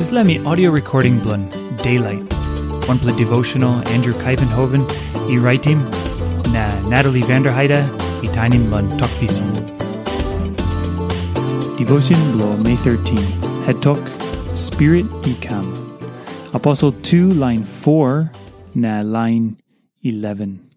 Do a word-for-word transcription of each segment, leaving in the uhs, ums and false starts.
Dispela mi audio recording bilong Daylight, wanpela devotional Andrew Kaivenhoven i raitim, na Natalie Vanderheide i tainim long Tok Pisin. Devotion bilong May thirteen, het tok, Spirit i kam. Aposel tu lain foa na lain eleven.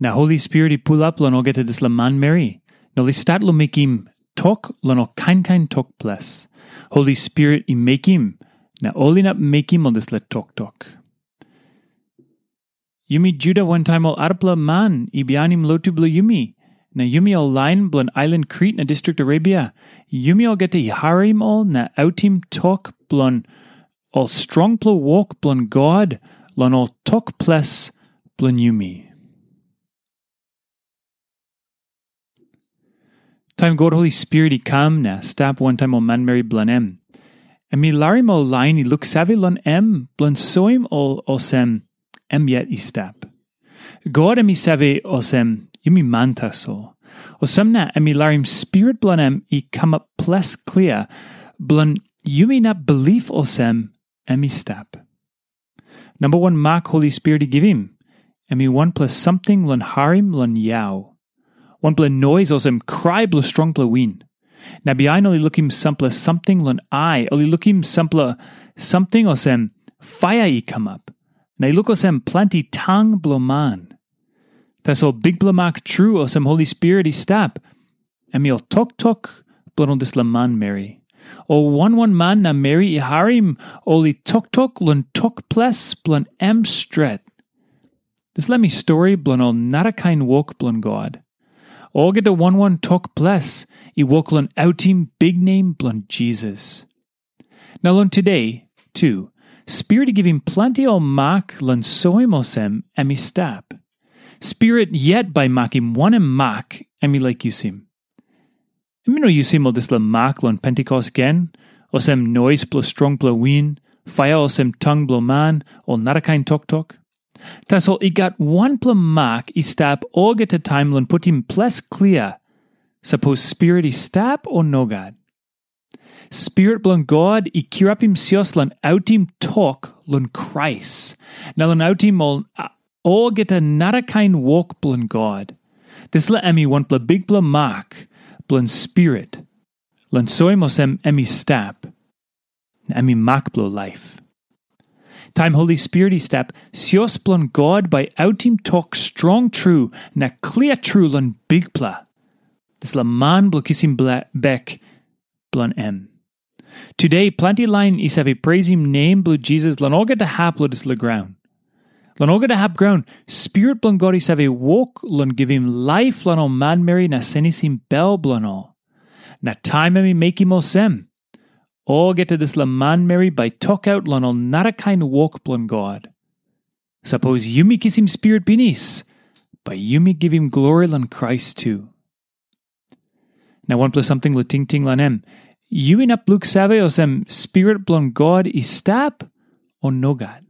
Na Holi Spirit i pulap long olgeta dispela manmeri, na ol i stat long mekim tok long ol kain kain tok ples. Holi Spirit i mekim, na ol inap mekim ol dispela toktok. Yumi Juda wantaim ol arapela man i bihainim lotu bilong yumi, na yumi ol lain bilong ailan Krit na distrik Arabia, yumi olgeta i harim ol na autim tok bilong ol strongpela wok bilong God long ol tok ples bilong yumi. Taim God Holi Spirit i kam na stap wantaim ol manmeri bilong em, em i larim ol lain i luksave long em bilong soim ol olsem em yet i stap. God em i save olsem yumi man tasol. Olsem na em i larim Spirit bilong em i kamap ples klia bilong yumi inap bilip olsem em i stap. Namba wan mak Holi Spirit i givim, em i wanpela samting long harim long yau. Wanpela nois olsem krai bilong strongpela win. Na bihain ol i lukim sampela samting long ai, ol i lukim sampela samting olsem paia i kamap. Na i luk olsem planti tang bilong man. Tasol bikpela mak tru olsem Holi Spirit i stap, em i ol toktok bilong ol dispela manmeri. Ol wan wan man na meri i harim ol i toktok long tok ples bilong em stret. Dispela mi stori bilong ol narakain wok bilong God. Olgeta wan wan tok ples i wok long autim biknem bilong Jisas. Na long tude, tu, Spirit i givim planti ol mak long soim olsem em i stap. Spirit yet bai makim wanem mak em i laik yusim. Em i no yusim ol dispela mak long Pentikos gen, olsem nois bilong strongpela win, paia olsem tang bilong man, o narakain toktok. Tasol i gat wanpela mak i stap olgeta taim long putim ples klia, sapos Spirit i stap o nogat. Spirit bilong God i kirapim sios long autim tok long Krais, na long autim ol a- olgeta narakain wok bilong God. Dispela em i wanpela bikpela mak bilong Spirit, long soim olsem em i stap, na em i mak bilong laip. Taim Holi Spirit i stap, sios bilong God bai autim tok strong tru na klia tru long Bikpela, dispela man bilong kisim bla- bek bilong em. Tude, planti lain i save preisim nem bilong Jisas long olgeta hap long dispela graun. Long olgeta hap graun, Spirit bilong God i save wok long givim laip long ol manmeri na senisim bel bilong ol. Na taim em i mekim olsem, olgeta dispela manmeri bai tokaut long ol narakain wok bilong God. Sapos yumi kisim Spirit pinis, bai yumi givim glori long Krais tu. Na wanpela samting long tingting long em, yu inap luksave olsem Spirit bilong God i stap, o nogat?